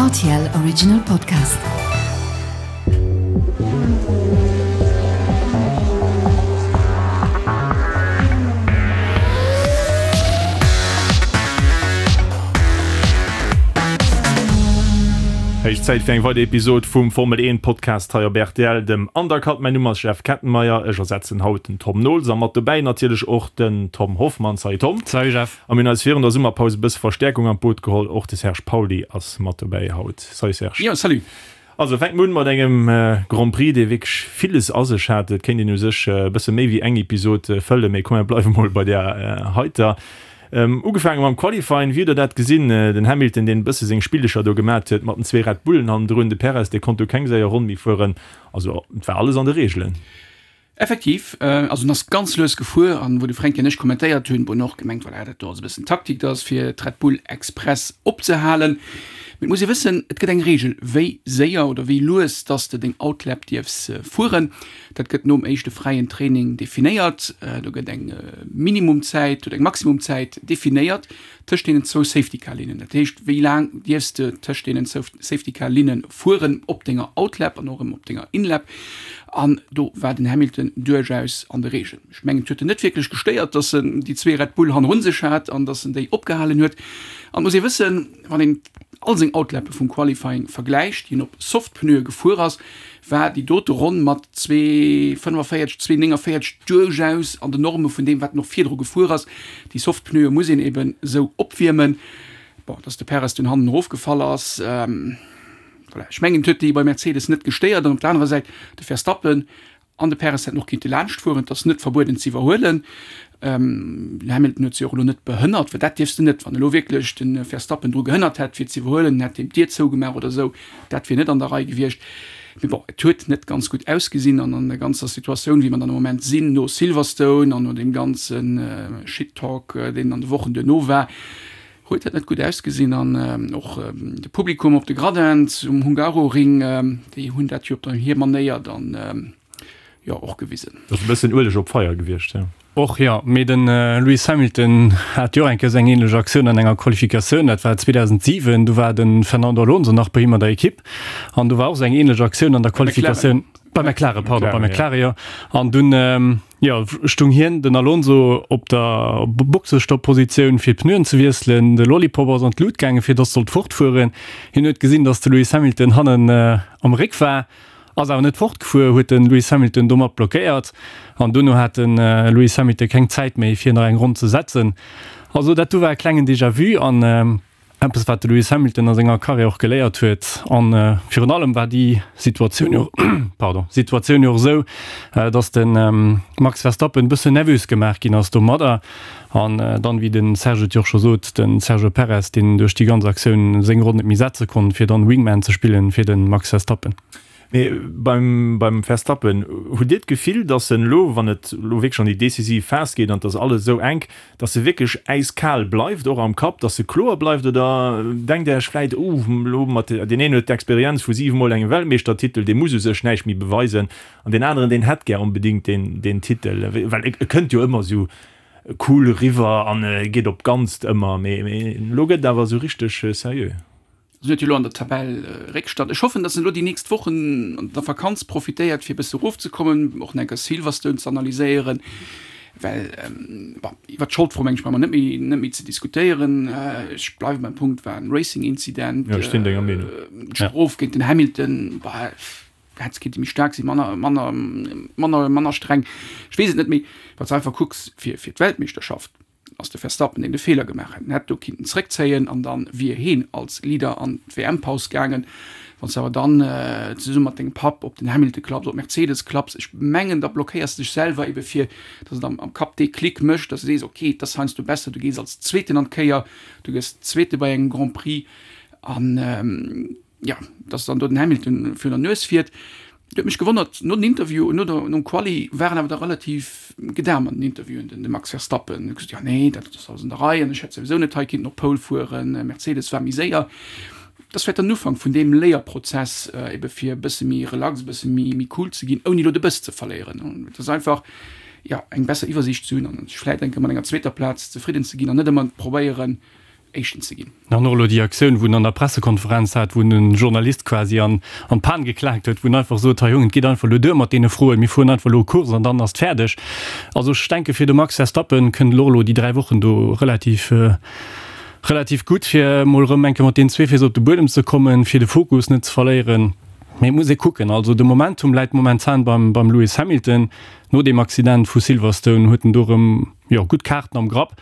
Rtl Original Podcast. Héich Zäit fir eng weider Episod vum Formel 1 Podcast hei op rtl, dem Undercut. Mäin Numm ass Jeff Kettenmeyer, ech ersetzen haut den Tom Nols a mat dobäi natierlech och den Tom Hoffmann. Salut Tom. Salut Jeff. A mir hunn eis virun der Summerpaus e bësse Verstäerkung an d'Boot geholl, och de Serge Pauly ass mat dobäi haut. Salut Serge. Jo, salut. Also fänke mer un mat engem Grand Prix, dee wierklech villes a sech hat. Et kéint een u sech e bësse méi wéi eng Episod fëllen, mee komm mir bleiwe mol bei där heiter. Ugefaange mam Qualifying, wéi hutt der dat gesinn? Den Hamilton, deen e bësse seng Spillecher do gemat huet mat den zwee Red Bullen hannendrun, de Perez, dee konnt do keng séier Ronn méi fueren. Also et war alles an de Reegelen. Effektiv, also en ass ganz lues gefuer an wou de Fränki an ech kommentéiert hunn, wou en och gemengt, voilà, dat do ass e bëssen Taktik, dat ass fir d'Red Bull express opzehalen. Mee et muss ee wëssen, et gëtt eng Reegel, wéi séier oder wéi lues dass de deng Outlap dierfs fueren. Dat gëtt nom éischte fräien Training definéiert. Do gëtt eng Minimumzäit oder eng Maximumzäit definéiert. Tëscht deenen zwou Safety-Car-Linnen. Dat heescht, wéi laang dierfs de tëscht deenen zwou Safety-Car-Linne fueren op denger Outlap an och erëm op denger Inlap. An do war den Hamilton duerchaus an de Reegen. Ech mengen, et huet en net wierklech gestéiert, datt en déi zwee Red Bull hannerun sech hat an datt en déi opgehalen huet. An et muss ee wëssen, wann een all seng Outlappe vum Qualifying vergläicht, déi en op Soft-Pneue gefuer ass, war déi dote Ronn mat 2,45, 2,49 duerchaus an den Norme vun deem, wat en och virdru gefuer ass. Déi soft Pneue muss een eben esou opwiermen. Bon, dass de Perez dunn hannen erofgefall ass, voilà, ech mengen, et huet déi bei Mercedes net gestéiert. An op der anerer Säit, de Verstappen an de Perez hätten och kinnte laanscht fueren, et ass net verbueden ze iwwerhuelen. Den Hamilton huet se och elo net behënnert, well dat dierfs de net. Wann elo wierklech de Verstappen dru gehënnert hätt fir ze iwwerhuelen, en hätt him d'Dier zougemaach oder esou, dat wier net an der Rei gewiescht. Mee bon, et huet net ganz gutt ausgesinn an an der ganzer Situatioun, wéi mer dann am Moment sinn, no Silverstone an no deem ganze Shit-Talk, deen an de Wochen duerno war, huet dat net gutt ausgesinn. An och de Publikum op de Gradins um Hungaroring, déi hunn dat jo op hir Manéier dann jo och gewisen. Dat ass e bëssen Ueleg op d'Feier gewiescht, jo. Och jo, mee de Lewis Hamilton hat jo och eng Kéier esou eng ähnlech Aktioun an enger Qualifikatioun, dat war 2007, do war de Fernando Alonso nach bei him an der Ekipp an do war och esou eng ähnlech Aktioun an der Qualifikatioun, bei McLaren, pardon, bei McLaren, jo, an dunn, jo, stung hien, den Alonso, op der Boxestopp-Positioun fir d'Pneuen ze wiesselen, de Lollipop ass an d'Lut gaangen, fir dass sollt fortfueren, hien huet gesinn, dass de Lewis Hamilton hannen am Réck war, Ass awer net fortgefuer, huet de Lewis Hamilton domat blockéiert an dono hat de Lewis Hamilton keng Zäit méi fir nach eng Ronn ze setzen. Also dat do war e klengen Déjà-vu an eppes wat de Lewis Hamilton a senger Karriär och geléiert huet. An virun allem war déi Situatioun jo, pardon, Situatioun jo och esou, datt de Max Verstappen e bëssen nervös gemaach ginn ass domadder. An dann, wéi de Serge et jo och scho sot, de Sergio Perez, deen duerch déi ganz Aktioun seng Ronn net méi setze konnt, fir dann Wingman ze spillen fir de Max Verstappen. Mee beim beim Verstappen, hutt Dir d'Gefill, datt en elo, wann et elo wierklech an déi decisiv Phas geet an et ass alles esou enk, datt e wierklech äiskal bleift, och am Kapp, datt e kloer bleift? Oder denkt Der Iech vläit, Uh, elo mat, deen een huet d'Experienz vu 7 Mol engem Weltmeeschtertitel, dee muss u sech näischt méi beweisen, an deen aneren, deen hätt gär onbedéngt deen deen Titel, well e kënnt jo ëmmer esou cool eriwwer an e geet op d'Ganzt ëmmer, mee mee elo gëtt et awer esou richteg seriö. En huet jo elo an der Tabell Réckstand. Ech hoffen, datt en elo déi nächst Wochen an der Vakanz profitéiert, fir e bësse erofzekommen, och nach eng Kéier Silverstone ze analyséieren, well, bon, iwwer d'Scholdfro meng ech brauche mer net méi net méi ze diskutéieren. Ech bleiwe beim Punkt, war en Racing-Incident. Jo, ech sinn denger Meenung. D'Strof géint den Hamilton, bah, Hätt kéinte méi staark sinn, manner, manner, manner, manner streng, ech weess et net. Mee wann s de einfach kucks fir, fir d'Weltmeeschterschaft, ass de Verstappen, deen de Feeler gemaach hätt. En hätt do kinnten zréckzéien an da wier heen als Leader an d'WM-Paus gaangen. Wann s de awer dann zesumme mat dengem Papp op den Hamilton klapps, op Mercedes klapps, ech mengen, da blockéiers de dech selwer ebe fir, datt et am, am Kapp dee Klick mécht, datt s de sees, okay, et ass heiansdo besser, du gees als Zweeten an d'Kéier, du gëss Zweete bei engem Grand Prix an, Jo, dass dann do den Hamilton virun der Nues fiert, huet mech gewonnert. No den Interview, no der, nom Quali war en awer da relativ gedam an den Interviewen, den de Max Verstappen. Huet gesot, jo nee, dat ass alles an der Rei an ech hätt souwisou net hei kinnten op Pole fueren, Mercedes war méi séier. Dat ass vläicht dann den Ufank vun deem Léierprozess, ebe fir e bësse méi relax, e bësse méi, méi cool ze ginn, ouni elo de Bëss ze verléieren. Et ass einfach, jo, eng besser Iwwersiicht ze hunn an sech vläicht eng Kéier mat enger zweeter Plaz zefridden ze ginn an net ëmmer probéieren. Éischten ze ginn. An och elo déi Aktioun, wou en an der Pressekonferenz hat, wou en e Journalist quasi an d'Pan geklaakt huet, wou en einfach sot, Hei Jongen, et geet einfach elo duer mat deene Froen, mir fueren einfach elo Course an dann ass et fäerdeg. Also ech denke fir de Max Verstappen kënnt elo och elo déi 3 Wochen do relativ, relativ gutt, fir emol erëm eng Kéier mat deenen zwee Féiss op de Buedem ze kommen, fir de Fokus net ze verléieren. Mee et muss ee kucken. Also de Momentum läit momentan beim, beim Lewis Hamilton. No deem Accident vu Silverstone huet en do erëm, jo, gutt Kaarten am Grapp.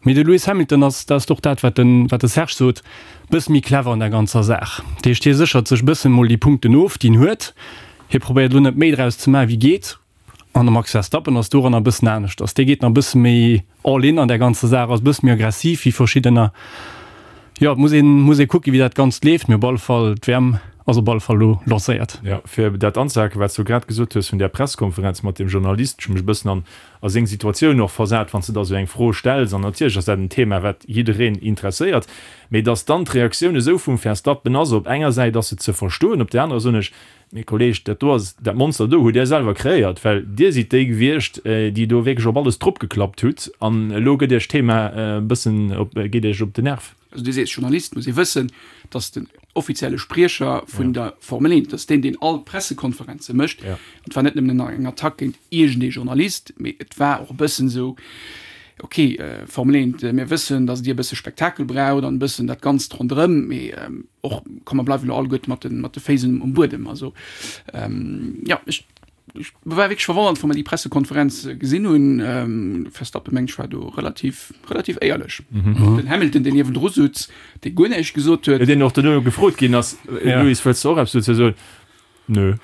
Mee de Lewis Hamilton ass, dat ass och dat, wat de, wat de Serge sot, bësse méi clever an der ganzer Saach. Dat heescht, hie séchert sech bëssen emol déi Punkten of, déi en huet. Hie probéiert elo net méi draus ze maachen, wéi geet. An de Max Verstappen ass doranner e bëssen aneschters. Dee geet nach e bësse méi all in an där ganzer Saach, ass e bësse méi aggressiv wéi verschiddener. Jo, et muss een, muss ee kucken, wéi dat Ganzt leeft. Mee op alle Fall, d'WM ass op alle Fall elo lancéiert. Jo, fir dat anzehaken, wat s du grad gesot hues vun där Presskonferenz mat deem Journalist, ech hu mech e bëssen an a seng Situatioun och versat, wann s de da sou eng Fro stells, an natierlech ass dat en Thema, wat jiddereen interesséiert, mee datt dann d'Reaktioun esou vum Verstappen ass, op enger Säit ass se ze verstoen, op där anerer soen ech, mee Kolleg, dat do ass, dat Monster do hutt Där selwer kreéiert, well Dir sidd déi gewiescht, déi do wierklech op alles dropgeklappt hutt, an elo gëtt Iech d'Thema e bëssen op, geet Iech op den Nerv. Also du sees Journalist, muss ee wëssen, datt den offizielle Spriecher vun der Formel 1, datt deen, deen all d'Pressekonferenze mécht, an et war net nëmmen eng Attack géint iergendee Journalist, mee et war och e bëssen esou, ok, Formel 1, mir wëssen, datt Dir e bësse Spektakel braucht an e bëssen dat Ganzt ronderëm, mee och, komm mer bleiwen elo alleguerte mat de Féiss um Buedem. Also jo, ech. Ech war wierklech verwonnert, wou mer déi Pressekonferenz gesinn hunn. Verstappen, mengen ech, war do relativ, relativ éierlech. Den Hamilton, deen niewendru sutz, dee guer näischt gesot huet. Deen och duerno gefrot ginn ass, Lewis, wëlls de och eppes dozou soen? Nö.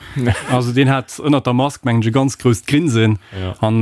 Also deen hat ënnert der Mask, mengen ech, e ganz grousst Grinsen an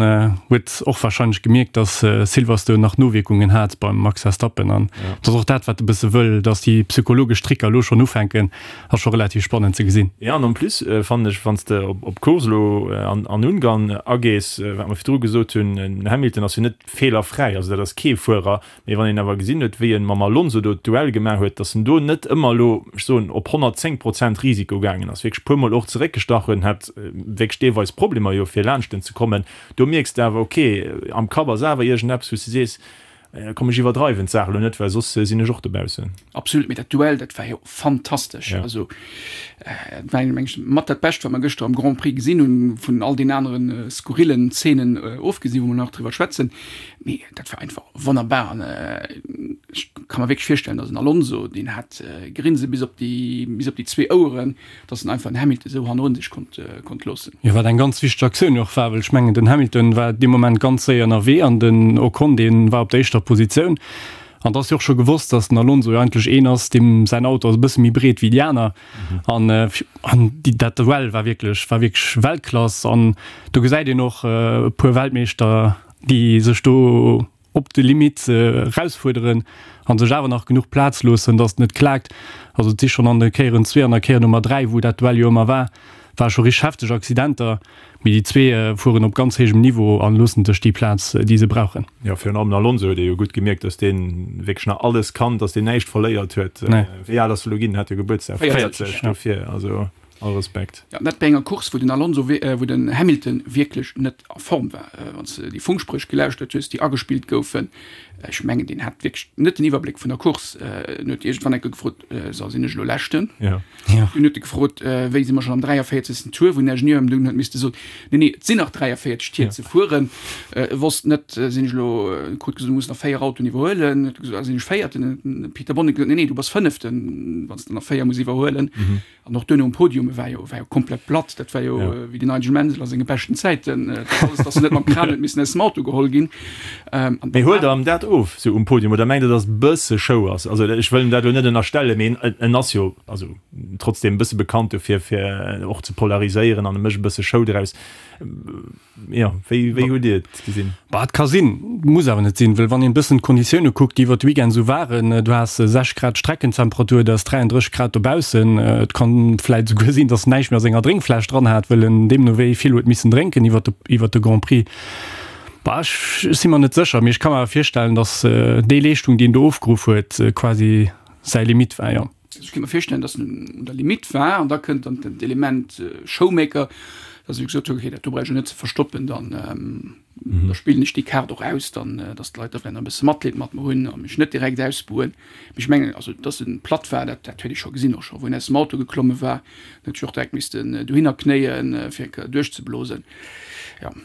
huet och warscheinlech gemierkt, datt Silverstone nach Nowierkungen hat beim Max Verstappen. An dat ass och dat, wat e bësse wëll, datt déi psychologesch Tricker elo schonn ufänken. Ass scho relativ spannend ze gesinn. Jo, an en plus fannen ech, wann s de op d'Course elo an Ungarn agees, wat mer virdru gesot hunn, den Hamilton ass jo net feelerfräi, also dat ass kee Fuerer, mee wann een awer gesinn huet, wéi e mam Alonso do d'Duell gemaach huet, datt en do net ëmmer elo, ech soen, op 110 Prozent Risiko gaangen ass, wierklech puermol och zeréckgestach huet, hat wierklech deelweis Problemer jo fir laanscht en ze kommen, do mierks de awer, ok, am Kapp ass awer iergendeppes, wou s de sees, Komm ech iwwerdreiwen d'Saach elo net, well soss sinn ech och dobaussen. Absolut, mee dat Duell, dat war jo fantastesch. Ja. Also dat war meng ech mat dat Bescht, wat mer gëschter am Grand Prix gesinn hunn, vun all den aneren skurrillen Zeenen ofgesinn, wou mer nach driwwer schwätzen. Mee dat war einfach wonnerbar an ech ka mer wierklech virstellen, datt en Alonso, deen hat Grinse bis op déi, bis op déi zwee Oueren, dass en einfach den Hamilton esou hannerun sech konnt, konnt loossen. Jo, wat eng ganz wichteg Aktioun och war, well ech mengen, den Hamilton war dee Moment ganz séier ënnerwee an den Ocon, dee war op der éischter Positioun. An et ass jo och scho gewosst, dass den Alonso jo eigentlech een ass, deem säin Auto ass e bësse méi breet wéi déi aner. An, an déi, dat Duell war wierklech, war wierklech Weltklass. An do gesäit een och e puer Weltmeeschter, déi sech do op de Limit erausfuerderen an sech awer nach genuch Plaz loossen, datt et net klaakt. Also et si schonn an de Kéieren zwee an der Kéier Nummer 3, wou dat Duell jo ëmmer war, ware scho richteg hefteg Accidenter, mee déi zwee fueren op ganz héijem Niveau a loossen sech déi Plaz, déi se brauchen. Jo, virun allem den Alonso huet ee jo gutt gemierkt, datt dee wierklech nach alles kann, datt deen näischt verléiert huet. Wéi al ass e lo ginn? Hat jo Gebuertsdag, 40, dofir also all Respekt. Jo, dat bei enger Course, wou den Alonso, wou den Hamilton wierklech net a Form war. Wann s de déi Funkspréch gelauschtert hues, déi agespillt goufen, ech mengen, deen hat wierklech net den Iwwerbléck vun der Course. En huet iergendwann eng Kéier gefrot, So, sinn ech elo Leschten? Ja. Dunn huet e gefrot, Wéi, si mer schonn am 43. Tour? Wou den Ingenieur em dunn huet misste soen, Nee, nee, et sinn nach 43 Tier ze fueren. E wosst net, Sinn ech elo, e krut gesot, du muss nach 4 Autoen iwwerhuelen. Huet e gesot, Ah, sinn ech Véierten? Huet den Peter Bonnington gesot, Nee, nee, du bass Fënneften, wann s de nach 4 muss iwwerhuelen. An och duerno um Podium, e war jo, war jo komplett platt. Dat war jo ja. wéi den Nigel Mansell a senge beschten Zäiten, äh, dass en net mam Kran huet missen aus dem Auto geholl ginn. Ähm, Mee huelt der em dat of, sou um Podium, oder mengt der, dass et bësse Show ass? Also ech wëll em dat elo net ënnerstellen, mee en, en ass jo also trotzdem e bësse bekannt dofir, fir och ze polariséieren an e mécht e bësse Show draus. Jo, wéi, wéi hutt Dir et gesinn? Bah, et ka sinn, muss awer net sinn, well wann een e bëssen d'Konditioune kuckt, déi iwwer de Weekend esou waren, du has 6 Grad Streckentemperatur, et ass 33 Grad dobaussen, et kann vläit esouguer sinn, datt en näischt méi a senger Drénkfläsch dran hat, well en deemno wéi vill huet missen drénken iwwer de, iwwer de Grand Prix. Bah, ech, ech si mer net sécher, mee ech ka mer awer virstellen, datt déi Leeschtung, déi en do ofgeruff huet, quasi säi Limit war, jo. Ech kéint mer virstellen, dass en un der Limite war an da kënnt dann d'Element Showmaker. Dass ech gesot hunn, okay, dat do brauch ech jo net ze verstoppen, dann da spillen ech déi Kaart och aus, dann dass d'Leit da vläicht nach e bësse Matleed mat mer hunn a mech net direkt ausbuhen. Mee ech mengen, also dass en platt war, dat dat huet ee scho gesinn, och scho wou en aus dem Auto geklomme war, en huet sech och direkt missten dohinner knéien, fir eng Kéier duerchzeblosen, jo.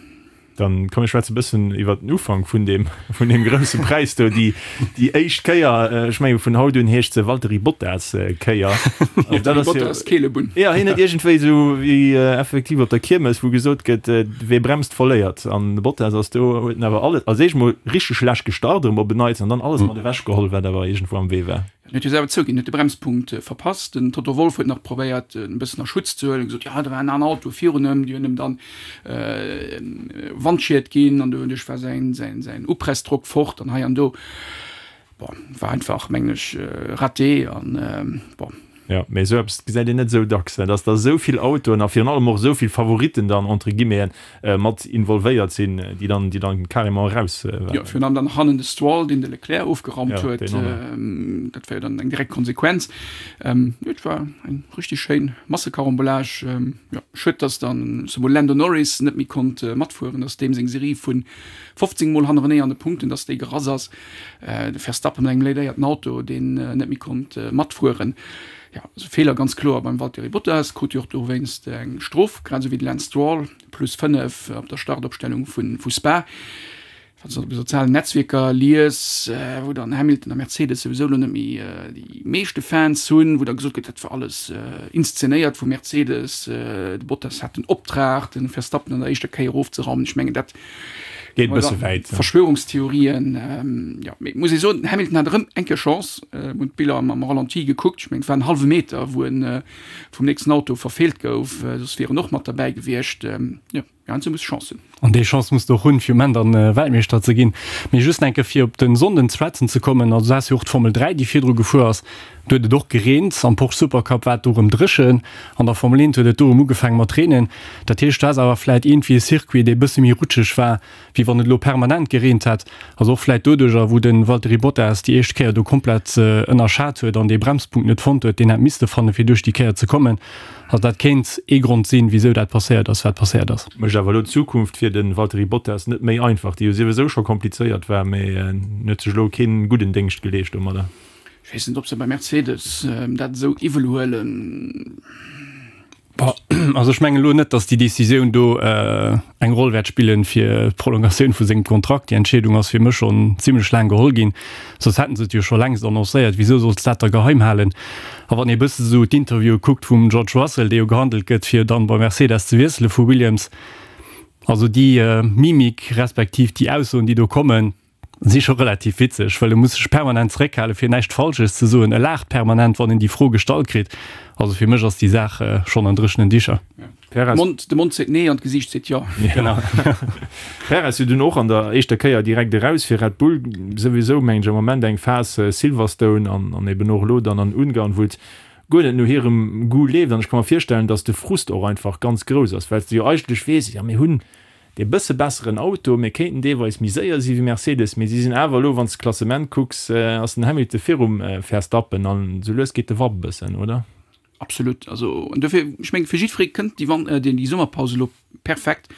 Dann komm mir schwätze bëssen iwwer den Ufank vun deem vun deem grousse Präis do, déi déi éischt Kéier, ech menge vun haut un heescht se Valtteri Bottas Kéier. Also dat ass jo Bottas Keelebunn. Ja, hien huet iergendwéi esou wéi effektiv op der Kiermes, wou gesot gëtt, wee bremst, verléiert. An de Bottas ass do, huet en awer alles, als éischt mol richteg schlecht gestart erëm op en Neits an dann alles mat ewech geholl, wat awer iergendwou am Wee war. En huet jo selwer zouginn, huet de Bremspunkt verpasst. Den Toto Wolff huet nach probéiert, en e bëssen a Schutz ze huelen, gesot, jo, do war en aner Auto virun em, déi hunn em dann Wandschied ginn an doduerch war säin, säin, säin Upressdrock fort an hei an do. Bon, war einfach, mengen ech, raté an bon. Jo, mee esou eppes gesäit een net esou dacks, dass da esou vill Autoen a virun allem och esou vill Favoritten dann, entre guillemeten, mat involvéiert sinn, déi dann, déi dann carrément eraus waren. Jo, virun allem dann hannen de Stroll, deen de Leclerc ofgerammt huet. Dat war jo dann eng direkt Konsequenz. Jo, et war eng richtig schéin Massekarambolage. Jo, schued, dass dann zemol Lando Norris net méi konnt matfueren, dass deem seng Serie vu 15 Mol hannerenee an de Punkten, dass déi gerass ass. De Verstappen mat engem léidéierten Auto, deen net méi konnt matfueren. Jo, also Feeler ganz kloer beim Valtteri Bottas, krut jo och dowéinst eng Strof, grad esou wéi de Lance Stroll, plus 5 op der Startopstellung vu Spa. Wann s de op de sozialen Netzwierker lies, wou dann Hamilton a Mercedes souwisou elo net méi déi meeschte Fans hunn, wou da gesot gëtt, dat war alles inszenéiert vu Mercedes, de Bottas hat den Optrag, de Verstappen an der éischter Kéier erofzeraumen. Ech mengen, dat Geet e bësse wäit. Verschwörungstheorien, jo, mee muss ee soen, den Hamilton hat erëm eng Kéier Chance. Mir hunn d'Biller am Ralenti gekuckt, ech mengen et war en hallwe Meter, wou en vum nächsten Auto verfeelt gouf, soss wier en och mat derbäi gewiescht. Jo, heiansdo muss Chance hunn. An déi Chance muss de och hunn, fir um Enn dann Weltmeeschter ze ginn. Mee just eng Kéier fir op de Sonnden ze schwätzen ze kommen, also du has jo och d'Formel 3, déi virdru gefuer ass. Do huet et och gereent, am Porsche Supercup war et do erëm dréchen, an der Formel 1 huet et do erëm ugefaange mat reenen. Dat heescht, du has awer vläit iergendwéi e Circuit, dee e bësse méi rutscheg war, wéi wann et elo permanent gereent hätt. Also och vläit doduercher, wou de Valtteri Bottas déi éischt Kéier do komplett ënnerschat huet an dee Bremspunkt net fonnt huet, deen hätt misste fannen, fir duerch déi Kéier ze kommen. Also dat kéint ee Grond sinn, wisou dat passéiert ass, wat passéiert ass. Mécht awer elo d'Zukunft fir de Valtteri Bottas net méi einfach, déi jo souwisou scho komplizéiert war, mee en huet sech elo kee gudden Déngscht geleescht domadder. Ech weess net, ob se bei Mercedes dat esou iwwel huelen. Also ech mengen elo net, datt déi Decisioun do eng Roll wäert spillen fir d'Prolongatioun vu sengem Kontrakt. Déi Entscheedung ass fir mech schonn zimlech laang geholl ginn, soss hätten se et jo scho längst annoncéiert. Wisou solls de dat da geheim halen? A wann ee bësse sou d'Interviewe kuckt vum George Russell, dee jo gehandelt gëtt fir dann bei Mercedes ze wiessele vu Williams, also déi Mimik respektiv déi Aussoen déi do kommen, Si scho relativ witzeg, well e muss sech permanent zeréckhalen, fir näischt Falsches ze soen. E laacht permanent, wann en déi Fro gestallt kritt. Also fir mech ass déi Saach schonn an dréchenen Dicher. Perez. De Mond seet nee an d'Gesiicht seet jo. Genau. Perez jo dunn och an der éischter Kéier direkt eraus fir Red Bull. Souwisou mengen ech am Moment eng Phas Silverstone an an eben och elo dann an Ungarn, wou et guer net no hirem Goût leeft. An ech ka mer virstellen, datt de Frust och einfach ganz grouss ass, well s de jo eigentlech weess, jo mir hunn dee bësse besseren Auto, mir kéinten deelweis méi séier si wéi Mercedes, mee si sinn awer elo, wann s de d'Klassement kucks, ass den Hamilton virum Verstappen an esou lues geet de Wapp e bëssen, oder? Absolut, also an dofir, ech mengen, fir jiddweree kënnt déi Wan-, déi Summerpaus elo perfekt.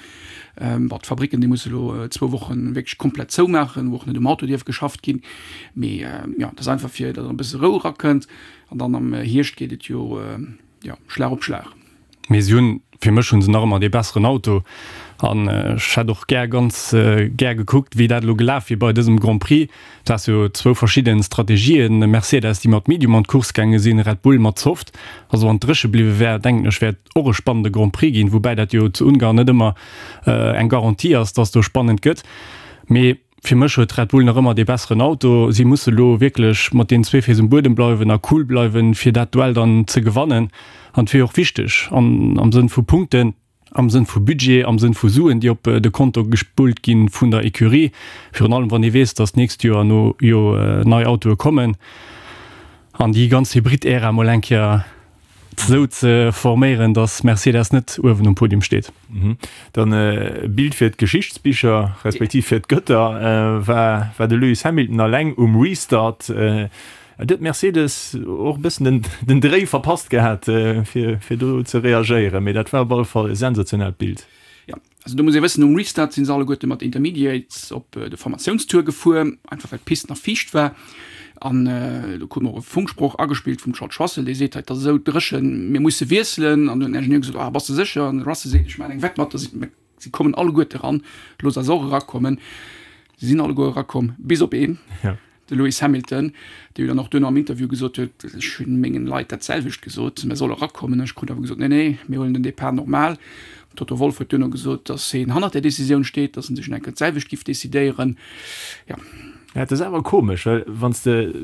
Bon, d'Fabricken, déi musse elo zwou Woche wierklech komplett zoumaachen, wou och net um Auto dierf geschafft ginn, mee jo, dat ass einfach fir datt e bësse Rou erakënnt an dann am Hierscht geet et jo, jo, Schlag op Schlag. Mee si hunn, fir mech hu se nach ëmmer dee besseren Auto an ech hätt och gär, ganz gär gekuckt, wéi dat elo gelaf wier bei dësem Grand Prix. Et ass jo zwou verschidde Strategien, Mercedes, déi mat Medium an d'Course gaange sinn, Red Bull mat Soft. Also wann et dréche bliwwe wär, denken ech, wär et och e spannende Grand Prix ginn, woubäi dat jo zu Ungarn net ëmmer eng Garantie ass, dass do spannend gëtt. Mee Fir mech huet Red Bull nach ëmmer dee besseren Auto. Si musse lo wierklech mat deenen zwee Féiss um Buedem bleiwen a cool bleiwen, fir dat Duell dann ze gewannen. An et wier och wichteg an am Sënn vu Punkten, am Sënn vu Budget, am Sënn vu Suen, déi op de Konto gespullt gi vun der Ecurie, virun allem wann ee weess, datt d'nächst Joer no jo nei Autoe kommen an déi ganz Hybrid-Ära mol eng Kéier esou ze forméieren, datt Mercedes net uewen um Podium steet. Dann e Bild fir d'Geschichtsbicher, respektiv fir d'Gëtter, war war de Lewis Hamilton alleng um Restart. Et huet Mercedes och e bëssen den, den Dréi verpasst gehat, fir, fir do ze reagéieren. Mee dat war op alle Fall e sensationellt Bild. Jo, also do muss ee wëssen, nom Restart si se alleguerte mat Intermediates op de Formatiounstour gefuer, einfach well d'Pist nach fiicht war. An do krute mer och e Funksproch agespillt vum George Russell, dee seet, hei, et ass esou dréchen, mir musse wiesselen. An du huet den Ingenieur gesot, ah, bass de sécher? An de Russell seet, ech maachen eng Wett mat, dass si kommen alleguerte eran, looss eis och erakommen. Si sinn alleguer erakomm, bis op een. De Lewis Hamilton, dee jo dann och duerno am Interview gesot huet, ech hunn mengen Leit dat selwecht gesot, mer solle erakommen. Ech krut awer gesot, nee, nee, mir huelen den Depart normal. Toto Wolff huet duerno gesot, datt hien hannert där Decisioun steet, datt en sech nach eng Kéier d'selwecht giff decidéieren. Jo. Ja, et ass awer komesch, well wann s de,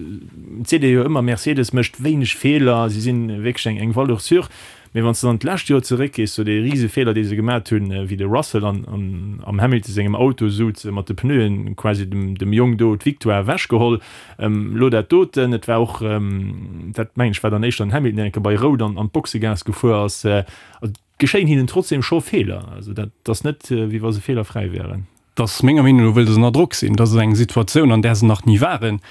et seet ee jo ëmmer, Mercedes mécht wéineg Feeler, si sinn wierklech eng eng Valeur sûre. Mee wann s de dann d'lescht Joer zeréckgees, sou dee rise Feeler, dee se gemat hunn, wéi de Russell an am Hamilton sengem Auto souz, mat de Pneuen quasi dem dem Jong do d'Victoire ewechgeholl. Elo dat doten, et war och, dat mengen ech war dann éischter den Hamilton, deen eng Kéier bei Rout an an d'Boxegaass gefuer ass. Also et geschéien hinnen trotzdem scho Feeler. Also dat ass net, wéi wa se feelerfräi wären. Dass menger Meenung no wëll se ënner Drock sinn. Dat ass eng Situatioun, an där se nach ni waren.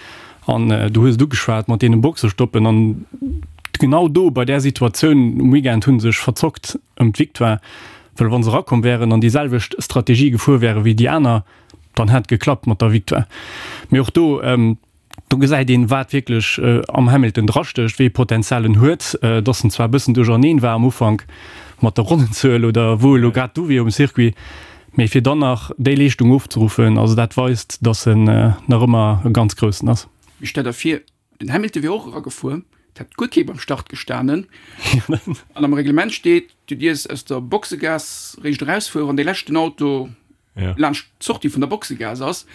An du hues et ugeschwat mat deene Boxestoppen. An genau do, bei där Situatioun um Weekend, hu se sech verzockt ëm d'Victoire. Well wa se erakomm wären an déi selwecht Strategie gefuer wäre wéi déi aner, dann hätt et geklappt mat der Victoire. Mee och do, Do gesäit een, wat wierklech am Hamilton drastécht, wéi ee Potenzial en huet. Dass en zwar e bëssen duercherneen war am Ufank mat der Ronnenzuel oder wou elo grad du wier um Circuit, mee fir dann nach déi Leeschtung ofzeruffen, also dat weist, dass en nach ëmmer e ganz Groussen ass. Mee stell der vir, den Hamilton wier och eragefuer, et hätt guer kee beim Start gestanen an am Reglement steet, du dierfs aus der Boxegaass réischt erausfueren, wann dee leschten Auto ja. laanscht d'Sortie vun der Boxegaass ass.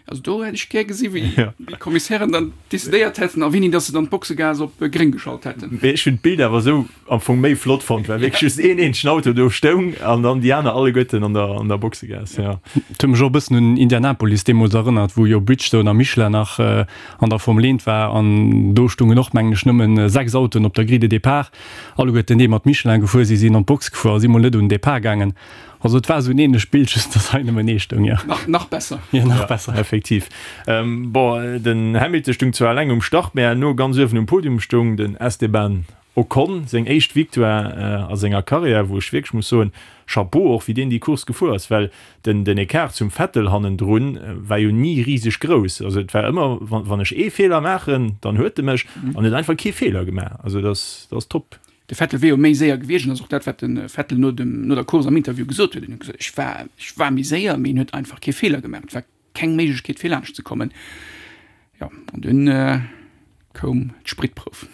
Also do hätt ech gär gesi wéi ja. déi Kommissären dann decidéiert hätten a wéini dass se dann d'Boxegaass op äh, gréng geschalt hätten. Mee ech hunn d'Bild awer esou am Fong méi flott fonnt, well wierklech just een eenzegen Auto do stoung an dann déi aner alleguerten an der, an der Boxegaass. Ja. Et huet mech och e bëssen un Indianapolis deemools erënnert, wou jo Bridgestone a Michelin nach äh, an der Formel 1 war an do stungen och mengen ech nëmmen 6 Autoen op der Grille de départ, alleguerten déi mat Michelin gefuer si sinn an d'Box gefuer a si mol net un den Départ gaangen. Also et war esou en ähnlecht Bild, just dass hei nëmmen ee stoung, jo. Nach, nach besser. Jo, nach besser. Ja, effektiv. Bon, den Hamilton stung zwar eleng um Start, mä herno ganz uewen um Podium stoung den Esteban Ocon, seng éischt Victoire a senger Karriär, wou ech wierklech muss soen, Chapeau och, wéi deen déi Course gefuer ass, well den, den Ecart zum Vettel hannendrun war jo ni riseg grouss. Also et war ëmmer, wann, wann ech ee Feeler maachen, dann huet e mech, an huet einfach kee Feeler gemaach. Also dat ass, dat ass top. De Vettel wier jo méi séier gewiescht an dat ass och dat, wat de Vettel no dem, no der Course am Interview gesot huet. En huet gesot, ech war, ech war méi séier, mee en huet einfach kee Feeler gemaach. Et war keng Méiglechkeet fir laanscht ze kommen. Jo, an dunn koum d'Spritprouf.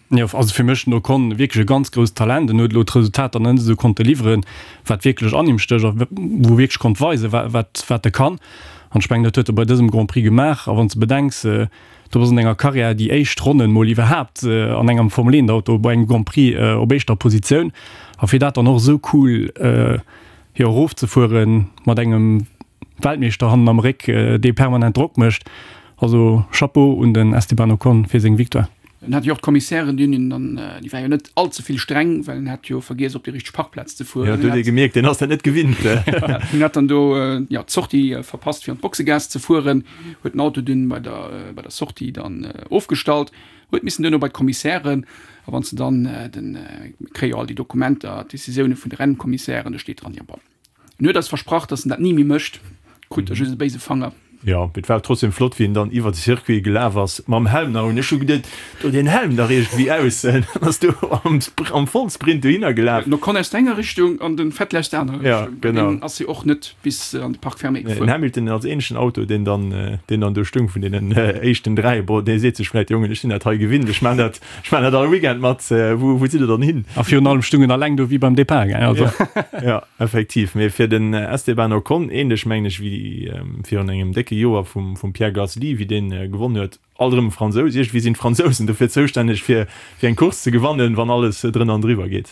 Jo, also fir mech den Ocon wierklech e ganz grousst Talent. En huet elo d'Resultater nach net esou konnte liwweren, wat wierklech an him stécht a wou e wierklech konnt weisen, wat, wat e kann. An ech mengen, dat huet e bei dësem Grand Prix gemaach. A wann s de bedenks, Du bass an denger Karriär déi éischt Ronnen mol iwwerhaapt an engem Formel 1 Auto bei engem Grand Prix op éischter Positioun a fir dat dann och esou cool jo erofzefueren mat engem Weltmeeschter hannen am Réck dee permanent Drock mécht. Also Chapeau un den Esteban Ocon fir seng Victoire. En hat jo och d'Kommissären, déi hunn hien dann, déi war jo net all ze vill streng, well en hat jo vergiess op déi richteg Parkplaz ze fueren. Jo, do huet ee gemierkt, deen ass dat net gewinnt. En hat dann do jo d'Sortie verpasst fir an d'Boxegaass ze fueren. Huet den Auto dunn bei der bei der Sortie dann ofgestallt, huet missen duerno bei d'Kommissären a wann s de dann den, mir kréie jo all déi Dokumenter, d'Decisioune vun de Rennkommissären, do steet dran, jo bon, en huet eis versprach, datt en dat ni méi mécht, krut e just e béise Fanger. Jo, mee et war trotzdem flott, wéi en dann iwwer de Circuit gelaf ass mam Helm nach un. Ech hu geduet, do deen Helm dach iergendwéi aus, dann ass do am am Vollsprint dohinner gelaf. Den Ocon aus der enger Richtung an den Vettel aus der anerer Richtung. Ja, genau. Deen ass jo och net bis an de Parc fermé gefuer. Den Hamilton als eenzegen Auto, deen dann, deen dann do stung vun deenen éischten 3, bon, dee seet sech vläit, Jongen, ech sinn dat hei gewinnt, ech maan dat, ech maan dat all Weekend mat, wou, wou sidd der dann hin? A virun allem stung en alleng do wéi beim Depart, gell, also. Ja, effektiv. Mee fir den Esteban Ocon, ähnlech mengen ech wéi virun engem décke Joer vum, vum Pierre Gasly, wéi deen gewonnen huet, alt erëm e Fransous, iergendwéi sinn d'Fransousen dofir zoustänneg fir, fir eng Course ze gewannen, wann alles drënner an driwwer geet.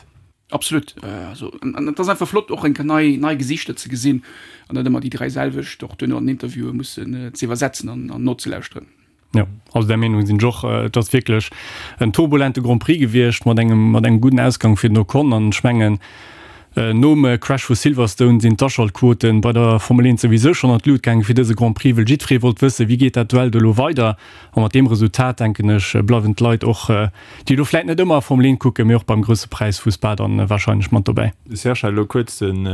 Absolut. Also, an et ass einfach flott och eng Kéier nei, nei Gesichter ze gesinn an net ëmmer déi 3 selwecht och duerno an den Interviewen mussen ze iwwersetzen an, an nozelauschteren. Jo, also där Meenung sinn ech och. Et ass wierklech en turbulente Grand Prix gewiescht mat engem, mat engem gudden Ausgang fir den Ocon an ech mengen. Nom Crash vu Silverstone sinn d'Aschaltquoten bei der Formel 1 souwisou schonn an d'Lut gaangen fir dëse Grand Prix, wëll jiddweree wollt wëssen, wéi geet dat Duell do elo weider. A mat deem Resultat, denken ech, bleiwen d'Leit och, déi elo vläit net ëmmer Formel 1 kucken, mee och beim Grousse Präis vu Spa dann warscheinlech mat dobäi. De Serge hat elo kuerz den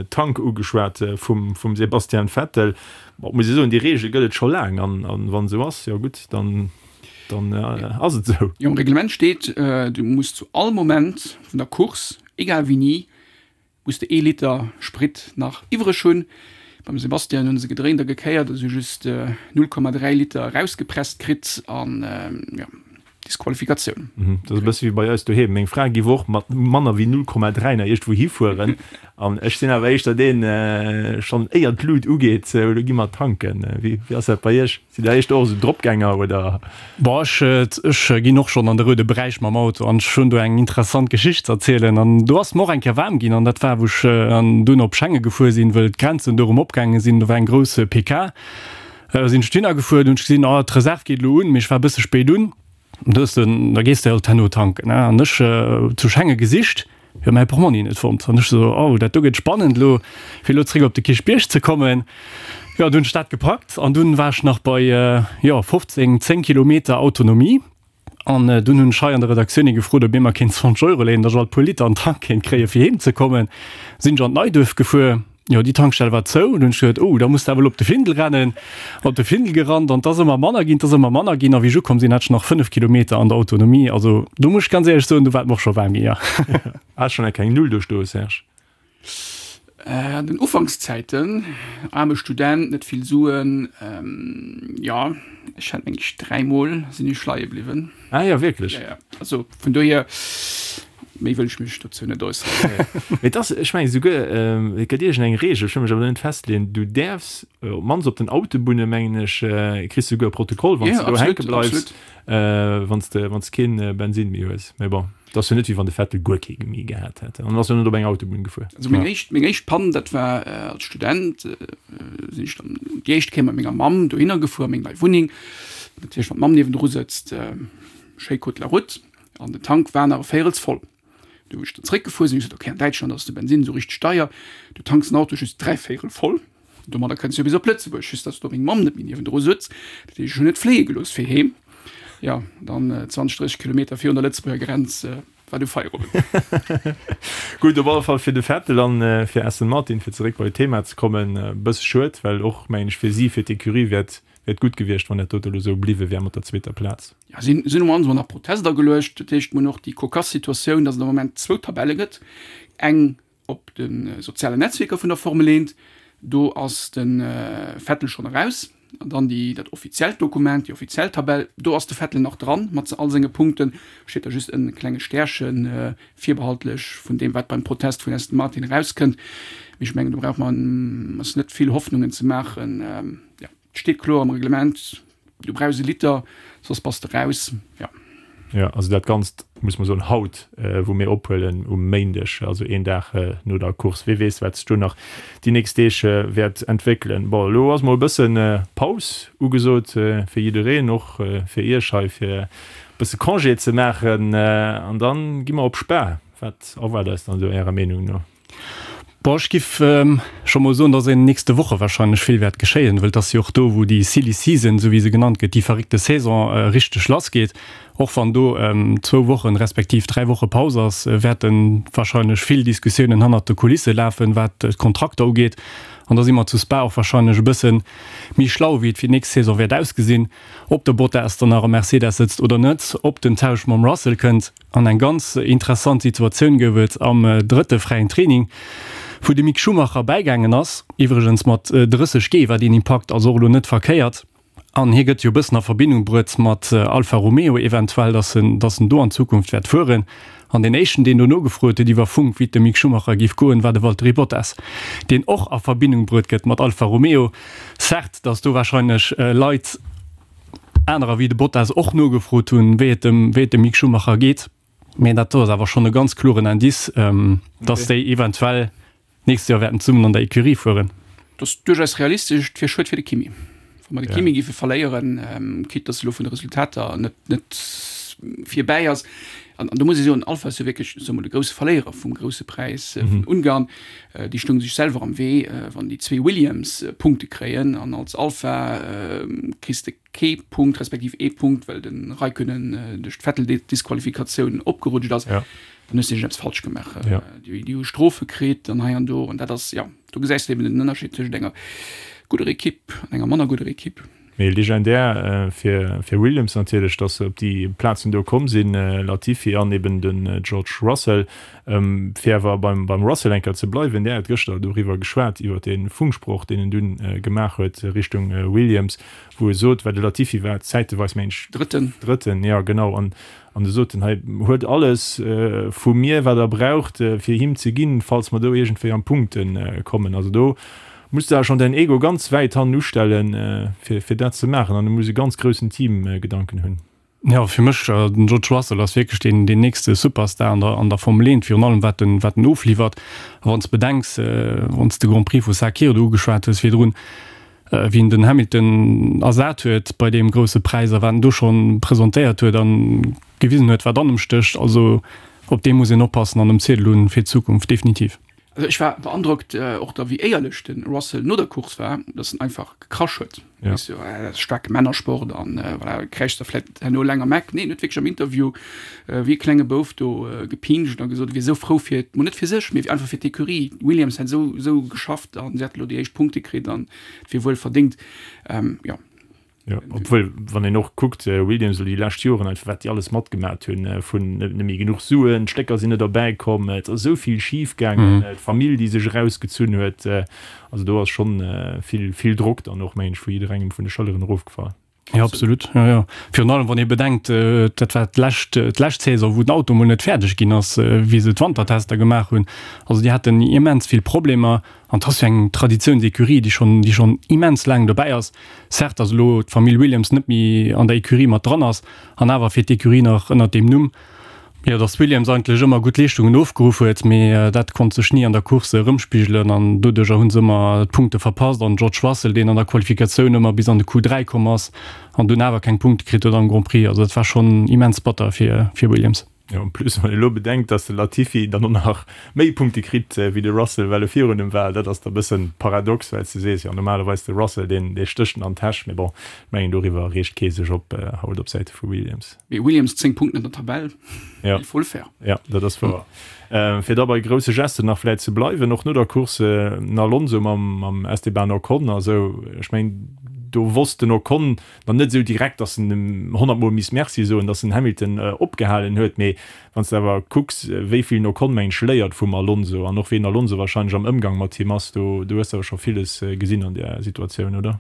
Tank ugeschwat vum Sebastian Vettel. Bon, muss ee soen, déi Reegel gëtt et scho laang an wann esou ass, jo gutt, dann dann ass et esou. Jo, am Reglement steet, du muss zu all Moment vun der Course, egal wéini, muss de ee Liter Sprit nach iwwreg hunn. Beim Sebastian hunn se gedréint a gekéiert a si hu just 0,3 Liter erausgepresst kritt an jo, Disqualifikatioun. Dat ass e bësse wéi bei eis doheem. Meng Fra giff och mat manner wéi 0,3 nach iergendwou hifueren an ech sinn awer éischter deen, schonn éier d'Lut ugeet, elo gi mer tanken. Wéi ass dat bei iech? Sidd der éischter och esou Dropgänger oder? Boah, ech, ech ginn och schonn an de roude Beräich mam Auto an ech hunn do eng interessant Geschicht ze erzielen. An do ass mer och eng Kéier waarm ginn an dat war wou ech an dunn op Schengen gefuer sinn, wëll d'Grenzen do erëm opgaange sinn. Do war eng grouss PK. Sinn ech dohinner gefuer, hunn ech gesinn, oh d'Reserv geet elo un, mee ech war e bësse spéit un. Do hues de, da gees de halt herno tanken, ne? An ech zu Schengen gesicht, jo mäi Portmonni net fonnt. An ech sou, oh dat do gëtt spannend elo, fir elo zréck op de Kierchbierg ze kommen. Jo, dunn hunn ech dat gepackt an dunn war ech nach bei, jo 15, 10 Kilometer Autonomie. An dunn hunn ech hei an der Redaktioun ee gefrot, ob ee mer kéint 20 Euro léinen, datt ech alt puer Liter an den Tank kéint kréien, fir heem ze kommen. Sinn ech an d'Neiduerf gefuer. Jo, déi Tankstell war zou. Dunn hunn ech geduet, oh, da muss de awer elo op de Findel rennen. Op de Findel gerannt an 't ass ëmmer manner ginn, 't ass ëmmer manner ginn. A wéi ech ukomm sinn, hat ech nach 5 Kilometer an der Autonomie. Also do muss ech ganz éierlech soen, do war et mer och scho waarm ginn, jo. Has schonn eng keng Null do stoe, Serge? An den Ufankszäiten, aarme Student, net vill Suen, jo, ech hat meng ech dräimol sinn ech leie bliwwen. Ah jo, wierklech? Jo, jo. Also vun dohier. Méi wëll ech mech dozou net äusseren. Mee et ass, ech mengen esouguer, et gëtt iergend eng Reegel, ech wëll mech awer net festleeën, du däerfs, op d'mannst op den Autobunne mengen ech, kriss du esouguer e Protokoll, wann s de do hänke bleifs, wann s de, wann s de keen Bensinn méi hues. Mee bon, et ass jo net, wéi wann de Vettel guer kee méi gehat hätt. An en ass jo net op eng Autobunn gefuer. Also meng éischt, meng éischt Pann, dat war als Student, sinn ech dann déi éischt Kéier mat menger Mamm dohinner gefuer, a meng nei Wunneng. Natierlech, wann d'Mamm niewendru sëtzt, schéi Côte de la Route. An den Tank war nach e Véirels voll. Du wou ech dann zréckgefuer sinn, hu ech gesot, okay, an Däitschland ass de Bensinn esou richteg deier, du tanks den Auto just dräivéierel voll, domadder kënns du jo bis op Lëtzebuerg, just dass do meng Mamm net méi niewendru sutz. Dat heescht, ech hunn net fléie gelooss fir heem. Jo, dann 20, 30 Kilometer virun der Lëtzebuerger Grenz war du Feierowend. Gutt, op alle Fall fir de Vettel an fir Aston Martin, fir zeréck bei d'Thema ze kommen, e bësse schued, well och, mengen ech, fir si, fir d'Ecurie wär et wär et gutt gewiescht, wann dat dote elo esou bliwwe wär mat der zweeter Plaz. Jo, si sinn um Anfang nach Protest ageluecht. Dat heescht, mir hunn och déi cocasse Situatioun, datt et am Moment zwou Tabelle gëtt, eng op de sozialen Netzwierker vun der Formel 1, do ass de Vettel schonn eraus, an dann déi, dat offiziellt Dokument, déi offiziell Tabell, do ass de Vettel nach dran mat all senge Punkten, steet da just e klenge Stärchen, virbehaltlech vun deem, wat beim Protest vun Aston Martin erauskënnt. Mee ech mengen, do brauche mer eis net vill Hoffnungen ze maachen. Jo, et steet kloer am Reglement, Du brauchs e Liter, soss bass de raus. Jo. Jo, also dat Ganzt, muss mer soen, haut, wou mir ophuelen, um Méindeg, also een Dag no der Course. Wee weess, wat sech do nach déi nächst Deeg wäert entwéckelen. Bon, elo ass mol e bësse Paus ugesot fir jiddereen, och fir Iech hei, fir e bësse Congé ze maachen. An da gi mer op Spa. Wat erwaart eis dann do Ärer Meenung no? Bon, ech giff scho mol soen, dass an den nächste Woche wahrscheinlech vill wäert geschéien, wëll et ass jo och do, wou déi Silly Season, esou wéi se genannt gëtt, déi verréckte Saison richteg lassgeet. Och wann do zwou Wochen, respektiv 3 Woche Paus ass, wäerte wahrscheinlech vill Diskussiounen hannert de Kulisse lafen, wat d'Kontrakter ugeet. An da si mer zu Spa och wahrscheinlech e bësse méi schlau, wéi et fir d'nächst Saison wäert ausgesinn, ob de Bottas dann nach am Mercedes sëtzt oder net, ob den Tausch mam Russell kënnt. An eng ganz interessant Situatioun gouf et am drëtte fräien Training, wou de Mick Schumacher bäigaangen ass, iwwregens mat 30 G war deen Impakt also och elo net verkéiert. An hie gëtt jo e bëssen a Verbindung bruet mat Alfa Romeo eventuell, datt en, datt en do an Zukunft wäert fueren. An deen éischten, deen do nogefrot huet iwwer Funk, wéi et dem Mick Schumacher géif goen, war de Valtteri Bottas, deen och a Verbindung bruet gëtt mat Alfa Romeo. Certes, datt do warscheinlech Leit, anerer wéi de Bottas och nogefrot hunn, wéi et dem, wéi et dem Mick Schumacher geet. Mä dat do ass awer schonn e ganz kloren Indice, dass déi eventuell d'nächst Joer wäerten zesummen an der Ecurie fueren. Dat ass duerchaus realistesch. Et wier schued fir de Kimi, wa mer de Kimi géife verléieren, quitte dass elo vun de Resultater net, net. virbäi ass. An do muss ee soen, Alfa ass jo wierklech, soe mol, de grousse Verléierer vum Grousse Präis vun Ungarn. Déi stounge sech selwer am Wee, wann déi zwee Williams Punkte kréien an als Alfa kriss de kee Punkt, respektiv ee Punkt, well de Raikkonen duerch d'Vettel-Disqualifikatioun opgerutscht ass. Dann hues de iergendeppes falsch gemaach. Déi hu Strofe kritt an hei an do. An dat ass, jo, do gesäis de eben den Ënnerscheed tëschent enger gudder Ekipp an enger manner gudder Ekipp. Mee legendär fir fir Williams natierlech, datt se op déi Plazen do komm sinn, Latifi an eben den George Russell. Fir awer beim beim Russell eng Kéier ze bleiwen, där huet gëschter doriwwer geschwat, iwwer dee Funksproch, deen en dunn gemaach huet Richtung Williams, wou e sot, well de Latifi war zäiteweis, meng ech, Drëtten. Drëtten, jo genau, an an e sot en, hei huet alles vu mir, wat der braucht, fir him ze ginn, falls mer do iergendwéi an d'Punkte kommen. Also do Muss de schon däin Ego ganz wäit hannen ustellen fir fir dat ze maachen an du muss e ganz groussen Teamgedanken hunn. Jo, fir mech, den George Russell ass wierklech deen deen nächste Superstar an der an der Formel 1, virun allem wat en wat en ofliwwert. A wann s de bedenks, wann s de Grand Prix vu Sakhir do ugeschwat hues virdrun, wéi en den Hamilton ersat huet bei deem grousse Präis a wat en do schonn presentéiert huet an gewisen huet wat an em stécht, also op dee muss een oppassen an um Ziedel hunn fir d'Zukunft, definitiv. Also ech war beandrockt och da wéi éierlech de Russell no der Course war, dass en einfach gekrasch huet. Ja. Weess du, dat ass staarke Männersport an voilà, kräischt da vläit herno eleng am Eck. Nee, en huet wierklech am Interview wéi e klenge Bouf do gepinscht a gesot, e wier esou frou fir, mol net fir sech, mee einfach fir d'Ecurie. Williams hätt esou esou geschafft an si hätte elo déi éischt Punkte kritt an et wier wuel verdéngt. Jo. Jo, obwuel, wann een och kuckt, Williams elo déi lescht Joren einfach, wat déi alles matgemat hunn, vun net méi genuch Suen, d'Stécker sinn net erbäi komm, et ass esou vill schif gaangen, d'Famill, déi sech erausgezunn huet, also do ass schonn vill, vill Drock dann och, mengen ech, vu jidderengem vun de Schëlleren erofgefall. Jo, absolut, jo, jo. Virun allem, wann ee bedenkt, dat war d'lescht, d'lescht Saison, wou den Auto mol net fäerdeg ginn ass, wéi se d'Wantertester gemaach hunn. Also déi haten immens vill Problemer an 't ass jo eng Traditiounsecurie, déi schonn, déi schonn immens laang dobäi ass. Certes, datt elo d'Famill Williams net méi an der Ecurie mat dran ass, an awer fiert d'Ecurie nach ënnert deem Numm. Jo, datt Williams eigentlech ëmmer gutt Leeschtungen ofgeruff huet, mee dat konnt sech ni an der Course erëmspigelen an doduercher hu se ëmmer d'Punkte verpasst. An George Russell, deen an der Qualifikatioun ëmmer bis an de Q3 komm ass an dunn awer keng Punkte kritt huet am Grand Prix. Also dat war schonn immens batter fir Williams. Jo, en plus wann ee lo bedenkt, dass de Latifi dann och nach méi Punkte kritt wéi de Russell, well e virun em war, dat ass da bëssen paradox, well s de sees, jo normalerweis de Russell, deen dee stécht en an d'Täsch, mee bon, ech mengen doriwwer reegt kee sech op haut op Säite vu Williams. Mee Williams 10 Punkten an der Tabell, Ja. il faut le faire. Ja, dat ass wouer. Fir da bei grousse Gesten nach vläit ze bleiwen, och no der Course, den Alonso mam mam Esteban Ocon a sou, ech mengen do wosst den Ocon Dann net esou direkt, datt en em honnertmol misst Merci soen, datt en Hamilton opgehalen huet, mee wann s de awer kucks, wéi vill den Ocon, mengen ech, léiert vum Alonso an och wéi den Alonso wahrscheinlech am Ëmgang mat him ass, do do hues de awer scho villes gesinn an där Situatioun, oder?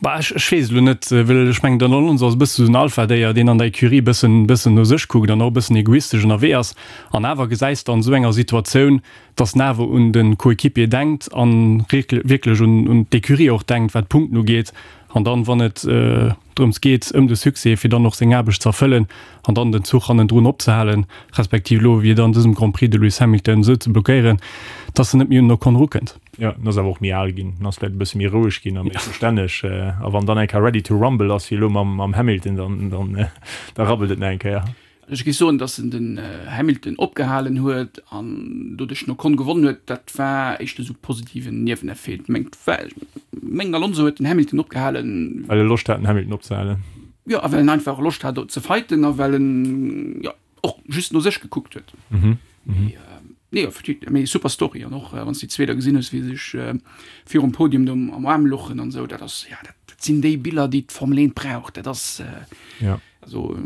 Bah, ech ech weess elo net, well ech mengen, den Alonso ass e bësse sou den Alpha-Déier, deen an der Ecurie e bëssen bëssen no sech kuckt an och e bëssen egoistesch ënnerwee ass. An awer gesäis de an esou enger Situatioun, datt en awer un de Coéquipier denkt an wierklech un un d'Ecurie och denkt, wat d'Punkten ugeet. An dann, wann et drëms geet, ëm de Succès, fir dann och seng Aarbecht ze erfëllen an dann den Zuch hannendrun opzehalen, respektiv elo wéi et an dësem Grand Prix de Lewis Hamilton esou ze blockéieren, dass en net méi un den Ocon erukënnt. Jo, en ass awer och méi al ginn, en ass vläicht e bësse méi roueg ginn a méi verstänneg. A wann dann eng Kéier ready to rumble ass, wéi elo mam Hamilton, dann da rabbelt et nach eng Kéier. Ech géif soen, datt en den Hamilton opgehalen huet an doduerch den Ocon gewonnen huet, dat war éischter esou positiven Nieweneffet. Mengt mengen Alonso huet den Hamilton opgehalen. Well e Loscht hat den Hamilton opzehalen. Jo, a well en einfach Loscht hat ze fighten a well en jo och just no sech gekuckt huet. Mee nee, effektiv, mee super Story an och wann s de déi zwee da gesinn hues, wéi se sech virum Podium do am Aarm louchen an esou, dat ass, jo, dat sinn déi Biller, déi d'Formel 1 brauch. Dat ass. Also,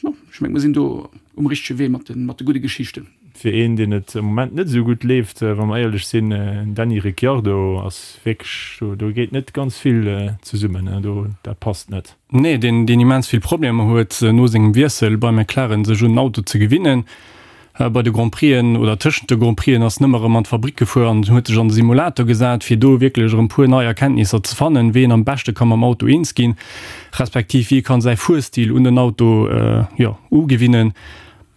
jo, ech mengen, mer sinn do um richtege Wee mat de, mat de gudde Geschichten. Fir een, deen et am Moment net esou gutt leeft, wa mer éierlech sinn, den Danny Ricciardo ass wierklech, do, do geet net ganz vill zesummen, do, dat passt net. Nee, deen, deen immens vill Problemer huet, no sengem Wiessel bei McLaren sech un den Auto ze gewinnen. Bei de Grand Prixen oder tëschent de Grand Prixen ass en ëmmer erëm an d'Fabrick gefuer an huet sech an de Simulator gesat, fir do wierklech erëm puer nei Erkenntnisser ze fannen, wéi een am beschte ka mam Auto eens ginn, respektiv wéi e kann säi Fuerstil un den Auto, jo, ugewinnen.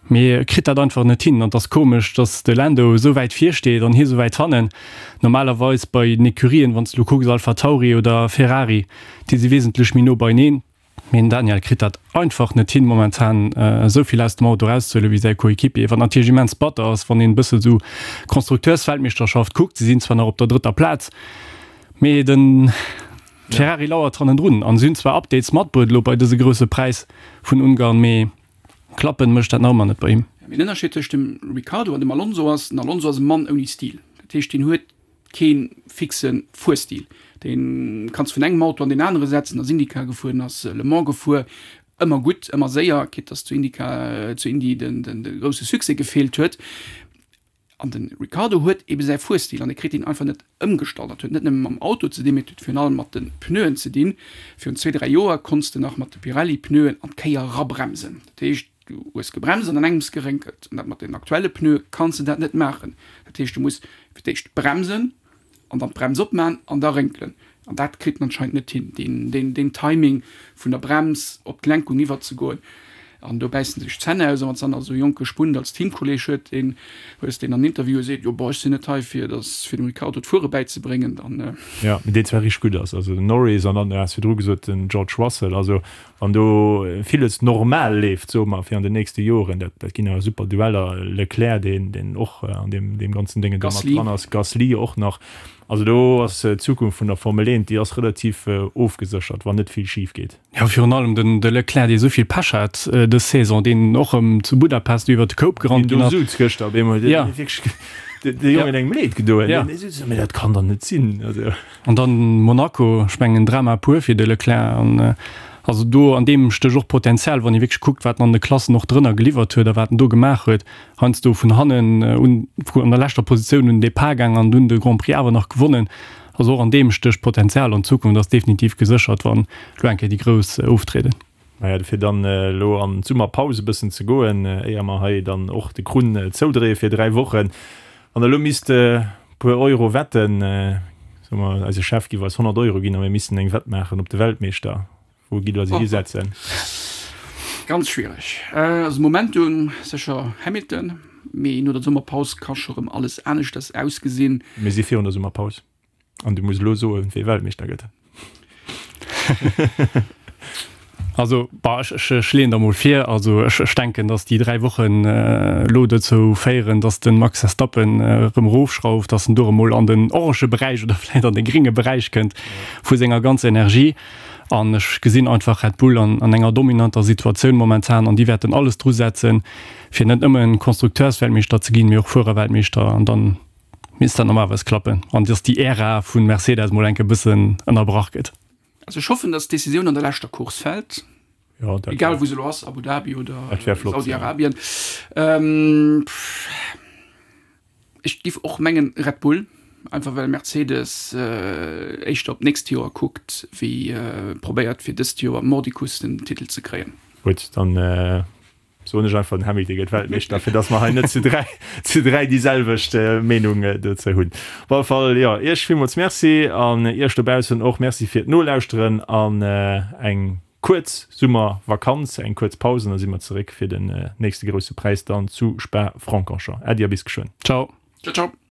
Mee e kritt dat einfach net hin an et ass komesch, dass de Lando esou wäit vir steet an hie esou wäit hannen. Normalerweis bei den Ecurien, wann s de elo kucks, AlphaTauri oder Ferrari, déi si wesentlech méi no beieneen. Mee den Daniel kritt dat einfach net hin momentan esou vill aus dem Auto erauszehuelen wéi säi Coéquipier, wat natierlech immens batter ass, wann een e bësse sou Konstrukteursweltmeeschterschaft kuckt. Si sinn zwar nach op der drëtter Plaz, mee de Ferrari lauert hannendrun an si hunn zwar Updates matbruet elo bei dëse grousse Präis vun Ungarn, mee klappen mécht dat nach ëmmer net bei him. Mee den Ënnerscheed tëscht dem Ricciardo an dem Alonso ass, den Alonso ass e Mann ouni Stil. Dat heescht, deen huet kee fixe Fuerstil. Dee kanns vun engem Auto an deen anere setzen, ass IndyCar gefuer, ass Le Mans gefuer, ëmmer gutt, ëmmer séier, quitte dass zu IndyCar, zu Indy den, den, de grousse Succès gefeelt huet. An de Ricciardo huet ebe säi Fuerstil an e kritt deen einfach net ëmgestallt. Dat huet net nëmme mam Auto ze dinn, mee et huet virun allem mat de Pneuen ze dinn. Virun zwee, dräi Joer konns de nach mat de Pirelli-Pneuen an d'Kéier erabremsen. Dat heescht, Du hues gebremst an an engems gerénkelt. An dat mat den aktuelle Pneue kanns de dat net maachen. Dat heescht, du muss fir d'éischt bremsen an dann d'Brems opman an da rénkelen. An dat kritt en anscheinend net hin, deen, deen, deen Timing vun der Brems op d'Lenkung iwwerzegoen. An do bäissen sech d'Zänn aus. A wann s dann nach esou e jonke Spund als Teamkolleeg huet, deen hues, deen an Interviewen seet, jo bon, ech sinn net hei fir dass, fir dem Ricciardo d'Fuere bäizebréngen, dann. Jo, mee deen zwar richteg gutt ass, also den Norris an dann, du has virdru gesot, den George Russell, also Wann do villes normal leeft, soe mer, fir an den nächste Joren, dat, dat ginn awer super Dueller, Leclerc, deen, deen och an deem, deem ganzen Déngen do mat dran ass, Gasly och nach. Also do ass d'Zukunft vun der Formel 1, déi ass relativ ofgeséchert, wann net vill schif geet. Jo, virun allem den, de Leclerc, dee esou vill Pech hat dës Saison, deen och erëm zu Budapest iwwer de Koup gerannt ginn ass. Deen do souz gëschter op eemol, deen huet wierklech de Jongen engem Leed gedoen. Deen souz, mee dat kann dach net sinn, also. An dann Monaco, ech mengen Drama pur fir de Leclerc. An also do an deem stécht och Potenzial, wann ee wierklech kuckt, wat en an de Klassen och drënner geliwwert huet a wat en do gemaach huet. Heiansdo vun hannen un, an der leschter Positioun un den Depart gaang an dunn de Grand Prix awer nach gewonnen. Also och an deem stécht Potenzial an d'Zukunft ass definitiv geséchert, wann elo eng Kéier déi Grouss oftrieden. Naja, dofir dann elo an d'Summerpaus e bëssen ze goen, éier mer hei dann och de Krunn zoudréie fir 3 Wochen. Wann der elo misst e puer Euro wetten, soe mer, eise Chef giff eis 100 Euro ginn a mir missten eng Wett maachen op de Weltmeeschter, wou gitt der se hisetzen? Ganz schwiereg. Also Momentum sécher Hamilton, mee no der Summerpaus ka scho rëm alles aneschters ausgesinn. Mir si virun der Summerpaus. An du muss elo soen, wee Weltmeeschter gëtt. Also bah, ech, ech, ech leeën der mol vir. Also ech, ech denken, datt déi 3 Wochen elo dozou féieren, datt de Max Verstappen erëm erofschrauft, datt en do erëm mol an den orange Beräich oder vläicht an de grénge Beräich kënnt vu senger ganzer Energie. An ech gesinn einfach Red Bull an, an enger dominanter Situatioun momentan an déi wäerten alles drusetzen, fir net nëmmen Konstrukteursweltmeeschter ze ginn, mee och Fuererweltmeeschter an dann Misst dat normalerweis klappen an dass déi Ära vun Mercedes mol enke bëssen ënnerbrach gëtt. Also ech hoffen, dass d'Decisioun an der leschter Course fält, Jo, dat egal wou se elo ass, Abu Dhabi oder Dat wär flott, ja. Saudi-Arabien. Ech giff och mengen Red Bull, einfach well Mercedes éischter op d'nächst Joer kuckt, wéi probéiert fir dëst Joer mordicus den Titel ze kréien. Gutt, dann Soen ech einfach, den Hamilton gëtt Weltmeeschter, fir dass mer hei net zu 3, zu 3 déi selwecht Meenung dozou hunn. Op alle Fall, jo, Iech villmools Merci an Iech dobaussen och Merci fir d'Nolauschteren an eng kuerz Summervakanz, eng kuerz Paus an da si mer zeréck fir den nächste grousse Präis dann zu Spa-Francorchamps. Äddi a bis geschwënn. Ciao. Ciao, ciao.